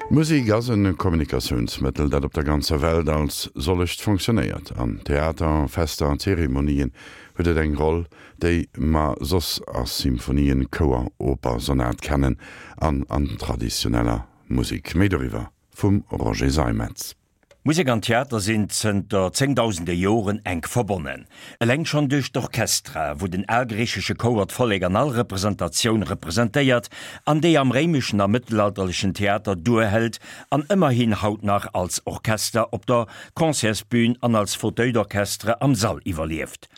Musek ass e Kommunikatiounsmëttel, dat op der ganzer Welt als sollecht fonctionnéiert. An Theater, Fester an Zeremonien huet et eng Roll, déi mer soss a Symphonien, Chouer, Oper, Sonat kennen an an traditioneller Musek. Méi doriwwer vum Roger Seimetz. Musek an Theater sinn zënter zéngdausende Joren enk verbonnen. Eleng schonn duerch d'Orchestra, wou den algriichesche Chouer d'Vollek an all Representatioun representéiert an déi am réimeschen a mëttelalterlechen Theater duerhëlt an ëmmerhin haut nach als Orchester op der Concertsbün an als Fauteuil d'orchestre am Sall iwwerlieft.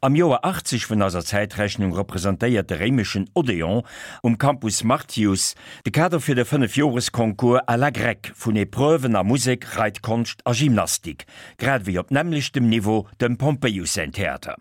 Am Joer 80 vun eiser Zäitrechnung representéiert de réimeschen Odeon um Campus Martius de Kader fir de Fënnefjoresconcours à la grecque vun Epreuven a Musek, Reitkonscht a Gymnastik, grad ewéi op nämmlechtem Niveau dem Pompeius säin Theater.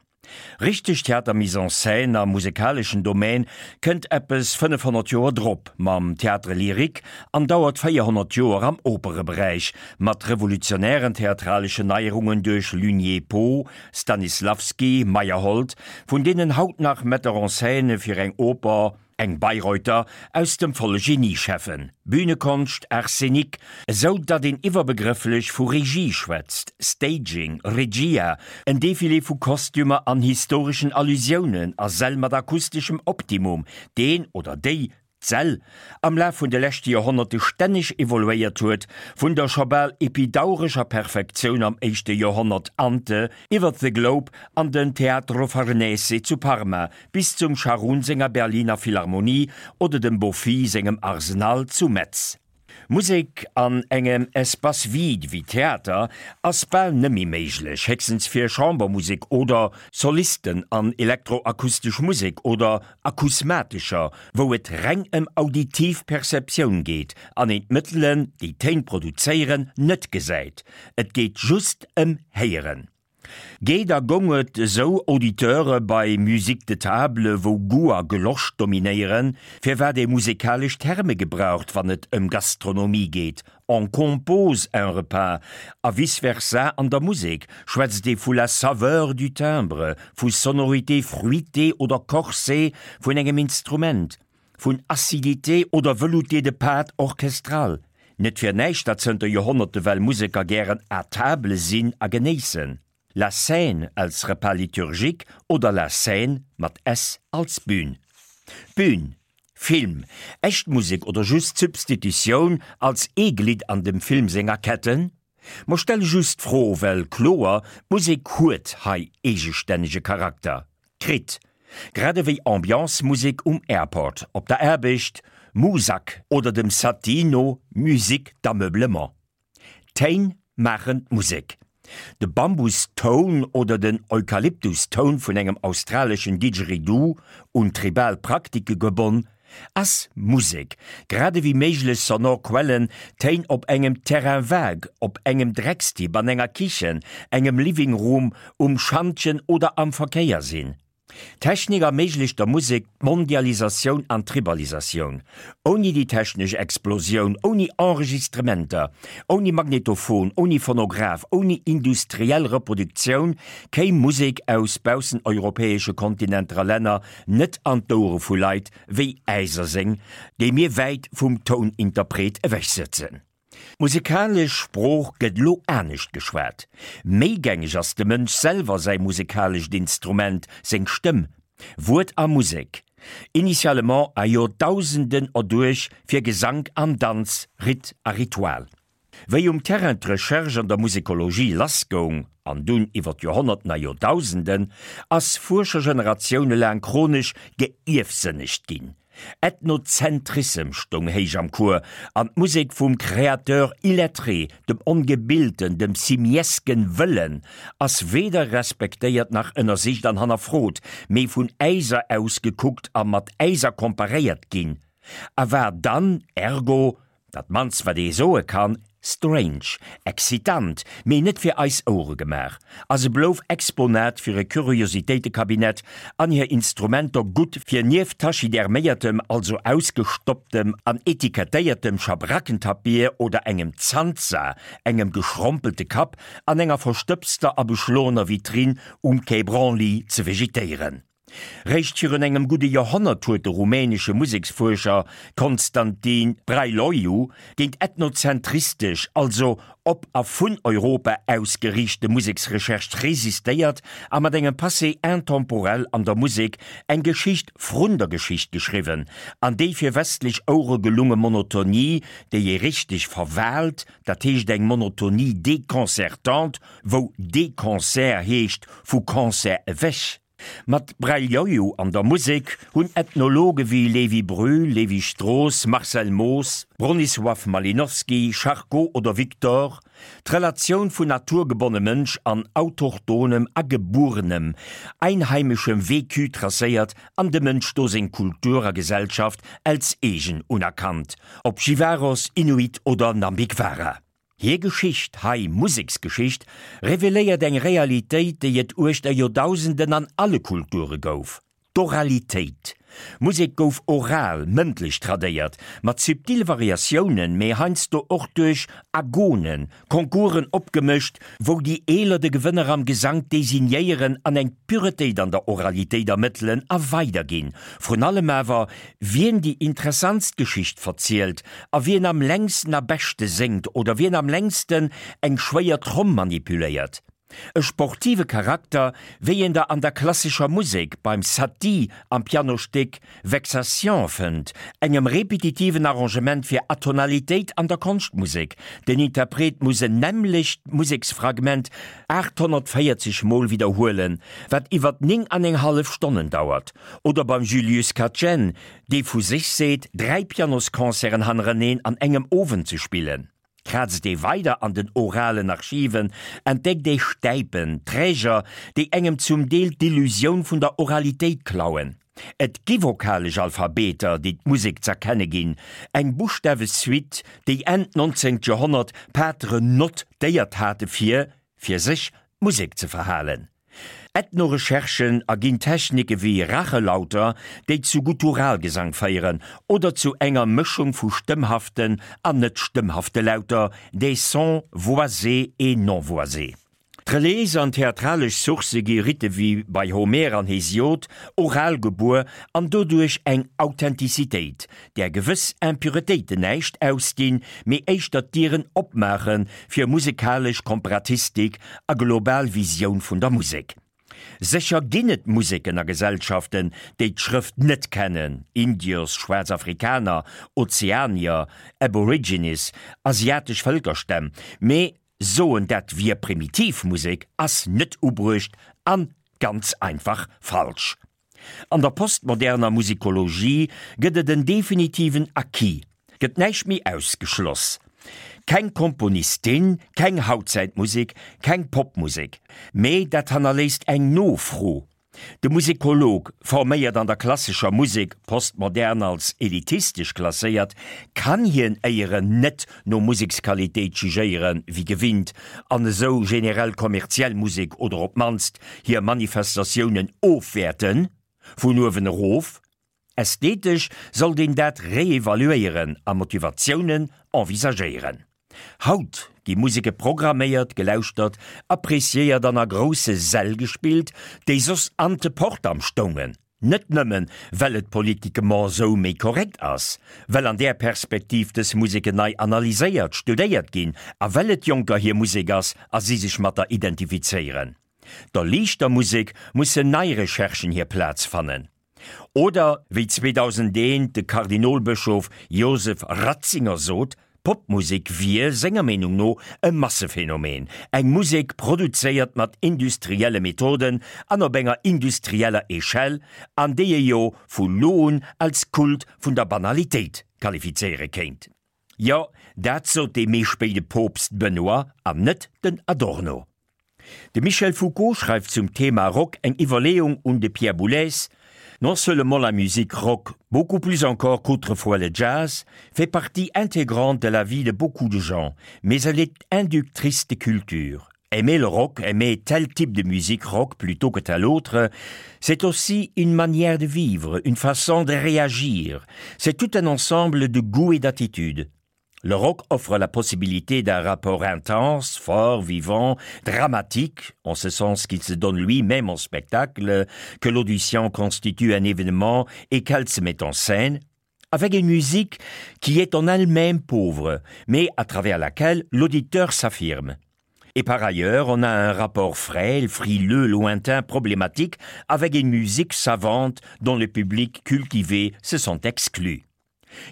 Richteg Theater-Mise en scène am musekaleschen Domaine kënnt eppes 500 Joer drop mam Théâtre lyrique an dauert 400 Joer am Opereberäich mat revolutionären theatraleschen Neierungen duerch Lugné-Poe, Stanislavski, Meyerhold, vun deenen haut nach Metteur en scène fir eng Oper, eng Bayreuther, aus dem volle Genie schäffen, Bühnekonscht, Art scénique, esou datt een iwwerbegrëfflech vu Regie schwätzt, Staging, Regia, en Defilé vu Kostümer an historeschen Allusiounen a Säll mat akusteschem Optimum, deen oder déi d'Säll am Laf vun de leschte Joerhonnerte stänneg evoluéiert huet, vun der scho bal epidaurescher Perfektioun am éischte Joerhonnert ante iwwer The Globe an den Teatro Farnese zu Parma bis zum Scharoun senger Berliner Philharmonie oder dem Boffy sengem Arsenal zu Metz. Musek an engem Espace vide wéi Theater ass bal nëmmi méiglech, héchstens fir Chambermusek oder Solisten an elektroakustesch Musek oder akusmatescher, wou et reng ëm auditiv Perceptioun geet an een d'Mëttelen, déi Téin produzéieren, net gesäit. Et geet just ëm Héieren. Geet a gong et esou Auditeure bei Musique de table, wou Goût a Gelosch dominéieren, firwat ee musekalesch Terme gebraucht, wann et ëm Gastronomie geet, on compose un repas, a vice versa an der Musek schwätzt ee vu la saveur du timbre, vu sonorité fruitée oder corsée vun engem Instrument, Vun Acidité oder Velouté de pâte orchestrale. Net fir näischt, datt zënter Joerhonnerte well Museker gären à table sinn a genéissen. La scène als Repas liturgique oder la Seine mat s als Bühn. Bühn, Film, echt Musek oder just Substitutioun als ee Glidd an dem Film senger Ketten? Mer stelle just d'Fro, well kloer, d'Musek huet hei eegestännege Charakter kritt, grad ewéi Ambiance-Musek um Airport, op der Aarbecht, Muzak, oder dem Satie no Musique d'ameublement. D'Téin maachen d'Musek. De Bambus-Toun oder den Eukalyptus-Toun vun engem australeschen Didgeridoo, un tribal Praktike gebonn, Ass Musek, grad ewéi méiglech sonor Quellen, Téin op engem Terrain vague, op engem Dreckstipp, an enger Kichen, engem Living Room, um Schantjen oder am Verkéier sinn. D'Technik erméiglecht der Musek d'Mondialisatioun an d'Tribalisatioun. Ouni déi technesch Explosioun, ouni Enregistrementer, ouni Magnetophon, ouni Phonograph, ouni industriell Reproduktioun kéim Musek aus bausseneuropäesche Kontinenter a Länner net an d'Ouere vu Leit wéi äiser seng, déi mir wäit vum Touninterpret ewech sëtzen. D'musekalesch Sprooch gëtt elo anescht geschwat. Méi gängeg ass dem Mënsch selwer säi musekalescht Instrument, seng Stëmm. Wuert a Musek, initialement a Joerdausenden erduerch fir Gesank an Danz, Ritt a Ritual. Wéi um Terrain d'Recherche an der Musekologie lassgoung, an dunn iwwer d'Joerhonnerten a Joerdausenden, ass Fuerschergeneratioune laang chronesch geierfsënnegt ginn. Ethnozentrissem stoung héich am Cours, an d'Musek vum Créateur illettré, dem Ongebilten, dem simiesken Wëllen, ass weder respektéiert nach ënnersicht an hannerfrot, mee vun äiser aus gekuckt a mat äiser komparéiert ginn, a war dann ergo Dat mannst wat ee soe kann, strange, excitant, mee net fir eis Ouere gemaach, a se blouf Exponat fir e Kuriositéitekabinett an hir Instrumenter gutt fir nieft tachyderméiertem, also ausgestopptem an etikettéiertem Schabrackentapir oder engem Zanza, engem geschrompelte Kapp, an enger verstëbster a beschloener Vitrinn um Quai Branly ze vegetéieren. Réischt virun engem gudde Joerhonnert huet de rumänesche Museksfuerscher Constantin Brăiloiu géint ethnozentristesch, also op a vun Europa ausgeriichte Museksrecherche resistéiert a mat engem Passé intemporel an der Musek eng Geschicht vrun der Geschicht geschriwwen an déi fir westlech Ouere gelunge Monotonie, déi ee richteg verwaalt, dat heescht eng Monotonie déconcertante, wou déconcert heescht vu Concert ewech. Mat Breljoiu an der Musek hunn Ethnologe wéi Lévi Brühl, Lévi Strauss, Marcel Moos, Bronisław Malinowski, Charcot oder Victor d'Relatioun vun naturgebonne Mënsch an autochtonem, agebuerenem, einheimeschem Vécu tracéiert an dem Mënsch do seng Kultur a Gesellschaft als eegen unerkannt, ob Jivaros, Inuit oder Nambikwara. Hir Geschicht, hei Museksgeschicht, reveléiert eng Realitéit, déi et uechter Joerdausenden an alle Kulture gouf, d'Oralitéit. Musek gouf oral, mëndlech tradéiert, mat subtile Variatiounen, mee heiansdo och duerch Agonen, Concoursen opgemëscht, wou déi Eeler de Gewënner am Gesank designéieren an eng Puretéit an der Oralitéit ermëttelen a weiderginn. Vrun allem awer, wien déi interessantst Geschicht verzielt a wien am längsten a beschte séngt oder wien am längsten eng schwéier Tromm manipuléiert. E sportive Charakter, wéi een der an der klassescher Musek beim Satie am Pianostéck Vexation fënnt, engem repetitiven Arrangement fir Atonalitéit an der Konschtmusek, den Interpret muss en nämmlecht Museksfragment 840 Mol widderhuelen, wat iwwer 9 an eng hallef Stonnen dauert. Oder beim Julius Katchen, dee vu sech seet, 3 Pianosconcerten hannereneen an engem Owend ze spillen. Krazt ee weider an den oralen Archiven, entdeckt ee Stäipen, Träger, déi engem zum Deel d'Illusioun vun der Oralitéit klauen. Et gi vokalesch Alphabeter, déi d'Musek z'erkenne ginn, eng Buschtawesuite, déi Enn 19. Joerhonnert d'Pateren notéiert hate fir, fir sech, d'Musek ze verhalen. Ethno-Recherchen erginn Technike wéi Rachelauter, déi zu Gutturalgesang féieren, oder zu enger Mëschung vu stëmmhaften an net stëmmhafte Lauter, des sons voisés et non voisés. D'Reliéis an theatralesch Sourcë gi Ritte wéi bei Homer an Hesiod oral gebuer an doduerch eng Authentizitéit, där gewëss Impuretéiten näischt ausdinn, mee éischter d'Dieren opmaache fir musekalesch Komparatistik a global Visioun vun der Musek. Sécher ginn et Museken a Gesellschaften, déi d'Schrëft net kennen, Indios, schwaarz Afrikaner, Ozeanier, Aborigines, asiatesch Vëlkerstämm, mee soen dat wier primitiv Musek ass net ubruecht an ganz einfach falsch. An der postmoderner Musikologie gëtt et en definitiven Acquis, gëtt näischt méi ausgeschloss. Keng Komponistin, keng Hautzäitmusek, keng Popmusek. Mee dat hannerléisst eng Nofro. De Musikolog, forméiert an der klassescher Musek, postmodern als elitistesch klasséiert, kann hien éieren net no Museksqualitéit jugéieren, wéi gewinnt, an esou generell kommerziell Musek oder op d'mannst hir Manifestatiounen ofwäerten, vun uewen erof. Ästhetesch sollt een dat reevaluéieren a Motivatiounen envisagéieren. Haut gi Museke programméiert, gelauschtert, appreciéiert an a grousse Säll gespillt, déi soss ante portam stoungen. Net nëmmen, well et politiquement esou méi korrekt ass, well an där Perspektiv dës Museken nei analyséiert, studéiert ginn a well et Jonker hir Musek ass a si sech mat der identifizéieren. Der liichter Musek mussen nei Recherchen hir Plaz fannen. Oder wéi 2001 de Kardinolbëschof Josef Ratzinger sot, Popmusek wier, senger Meenung no, e Massephenomen, eng Musek produzéiert mat industrielle Methoden an op enger industrieller Echelle, an déi ee jo vu lo un als Kult vun der Banalitéit qualifizéiere kéint. Jo, dat sot dee méi spéide Poopst Benoît an net den Adorno. De Michel Foucault schreift zum Thema Rock eng Iwwerleeung un de Pierre Boulez, Non seulement la musique rock, beaucoup plus encore qu'autrefois le jazz, fait partie intégrante de la vie de beaucoup de gens, mais elle est inductrice de culture. Aimer le rock, aimer tel type de musique rock plutôt que tel autre, c'est aussi une manière de vivre, une façon de réagir. C'est tout un ensemble de goûts et d'attitudes. Le rock offre la possibilité d'un rapport intense, fort, vivant, dramatique, en ce sens qu'il se donne lui-même en spectacle, que l'audition constitue un événement et qu'elle se met en scène, avec une musique qui est en elle-même pauvre, mais à travers laquelle l'auditeur s'affirme. Et par ailleurs, on a un rapport frêle, frileux, lointain, problématique, avec une musique savante dont le public cultivé se sent exclu.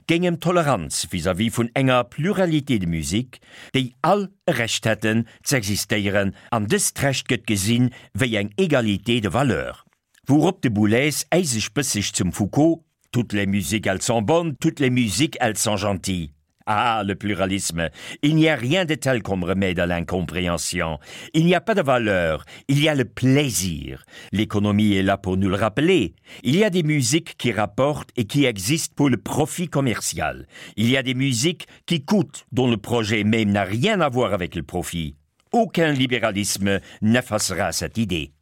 Géing ëm Toleranz vis-à-vis vun enger Pluralité de musiques, déi all e Recht hätten z'existéieren, an dëst Recht gëtt gesinn wéi eng Égalité de valeurs. Wourop de Boulez äiseg bësseg zum Foucault, Toutes les musiques elles sont bonnes, toutes les musiques elles sont gentilles. Ah, le pluralisme, il n'y a rien de tel comme remède à l'incompréhension. Il n'y a pas de valeur, il y a le plaisir. L'économie est là pour nous le rappeler. Il y a des musiques qui rapportent et qui existent pour le profit commercial. Il y a des musiques qui coûtent, dont le projet même n'a rien à voir avec le profit. Aucun libéralisme n'effacera cette idée.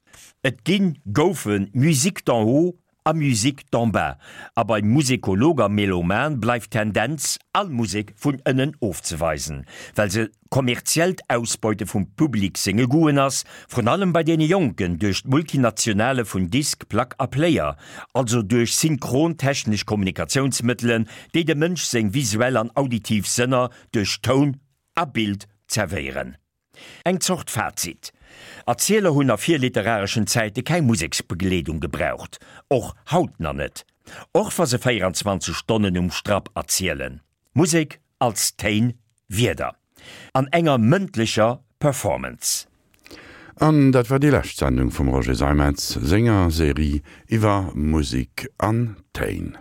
Et ginn, goufen Musiques d'en haut a Musique d'en bas, a beim Musekolog a Meloman bleift d'Tendenz, all Musek vun ënnen ofzeweisen, well se kommerziellt Ausbeute vum Public senge Goûten ass, vrun allem bei deene Jonken, duerch d'Multinationale vun Disk, Plack a Player, also duerch synchron technesch Kommunikatiounsmëttelen, déi dem Mënsch seng visuell an auditiv Sënner duerch Toun a Bild zerwéieren. Eng Zort Fazit, Erzieler hunn a virliterareschen Zäite keng Museksbegleedung gebraucht, och haut na net, och wa se 24 Stonnen um Strapp erzielen. Musek als Téin, Wierder an enger mëndlecher Performance. An dat war déi lescht Sendung vum Roger Seimetz senger Serie iwwer Musek an Téin.